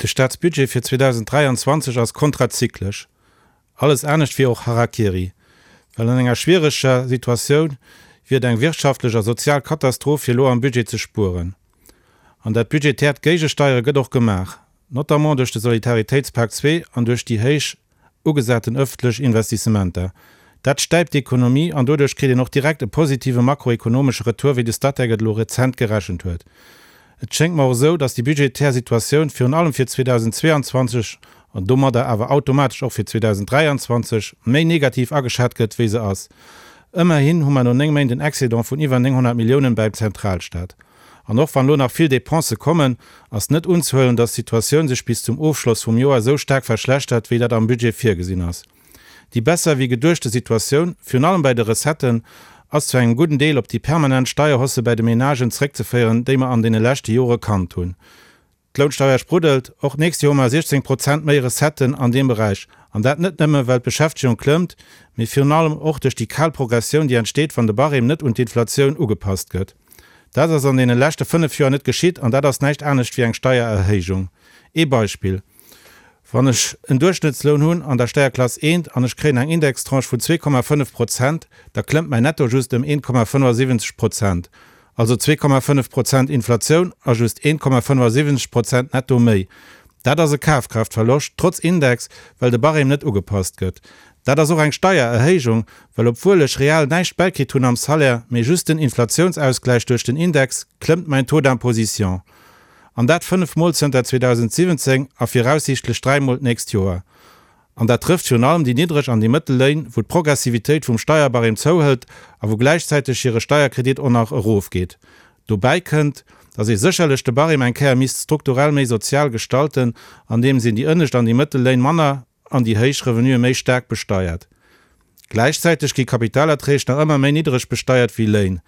De Staatsbudget fir 2023 ass kontrazyklesch. Alles anescht wier och Harakiri. Well an enger schwiereger Situatioun wier et eng wirtschaftlech a sozial Katastroph fir elo am Budget ze spueren. An dat budgetäert Géigesteiere gëtt och gemaach, notamment duerch de Solidaritéitspak 2 an duerch déi héich ugesaten ëffentlech Investissementer. Dat stäipt d'Ekonomie an doduerch kritt een och direkt e positive makroekonomesche Retour, wéi de Statec et elo rezent gerechent huet. Et schéngt mer och esou, datt déi budgetär Situatioun virun allem fir 2022, an domadder awer automatesch och fir 2023, méi negativ ageschat gëtt, wéi se ass. Ëmmerhin hu mer no 9 Méint en Excédent vun iwwer 900 Milliounen bäim Zentralstaat. An och wann elo nach vill Dépensë kommen, ass net unzehuelen, datt d'Situatioun sech bis zum Ofschloss vum Joer esou staark verschlechtert, wéi dat am Budget virgesinn ass. Déi besser wéi geduechte Situatioun, virun allem bei de Recetten, ass zu engem gudden Deel op déi permanent Steierhausse bäi de Menagen zréckzeféieren, déi mer an deene leschte Jore kannt hunn. D'Lounsteier spruddelt, och d'nächst Joer hu mer 16 Prozent méi Recetten an deem Beräich. An dat net nëmme well d'Beschäftegung klëmmt, mee virun allem och duerch déi kal Progressioun, déi entsteet, wann de Barème net un d'Inflatioun ugepasst gëtt. Dat ass an deene leschte 5 Joer net geschitt an dat ass näischt anescht wéi eng Steiererhéijung. Ee Beispill, Wann ech en Duerchschnëttsloun hunn an der Steierklass eent an ech kréien eng Indextranche vun 2,5 Prozent, da klëmmt mäin Netto just ëm 1,75 Prozent. Also 2,5 Prozent Inflatioun a just 1,75 Prozent Netto méi. Dat ass e Kafkraaftverloscht, trotz Index, well de Barème net ugepasst gëtt. Dat ass och eng Steiererhéijung, well obwuel ech real näischt bäikritt hunn am Salaire, mee just den Inflatiounsausgläich duerch den Index, klëmmt mäin Taux d'imposition. An dat 5 Mol zënter 2017 a viraussiichtlech 3 Mol d'nächst Joer. An dat trëfft virun allem déi niddreg an déi mëttel Léin, wou d'Progressivitéit vum Steierbarème zouhëlt a wou gläichzäiteg hire Steierkredit och nach erofgeet. Dobäi kënnt, datt ee sécherlech de Barème eng Kéier misst strukturell méi sozial gestalten, andeems een déi ënnescht an déi mëttel Léin manner an déi héich Revenuë méi staark besteiert. Gläichzäiteg gi Kapitalerträg nach ëmmer méi niddereg besteiert wéi Léin.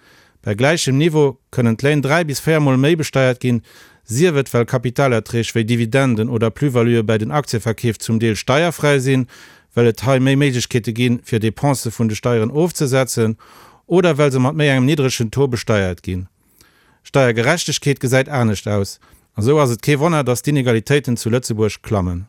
Bei gläichem Niveau kënnen d'Léin 3 bis 4 Mol méi besteiert ginn, sief et well Kapitalerträg wéi Dividenden oder Plus-valuë bäi den Aktieverkeef zum Deel steierfräi sinn, well et hei méi Méiglechkeete ginn, fir Depensë vun de Steieren ofzesetzen, oder well se mat méi engem nidderegen Taux besteiert ginn. Steiergerechtegkeet gesäit anescht aus. A sou ass et kee Wonner, datt d'Inegalitéiten zu Lëtzebuerg klammen.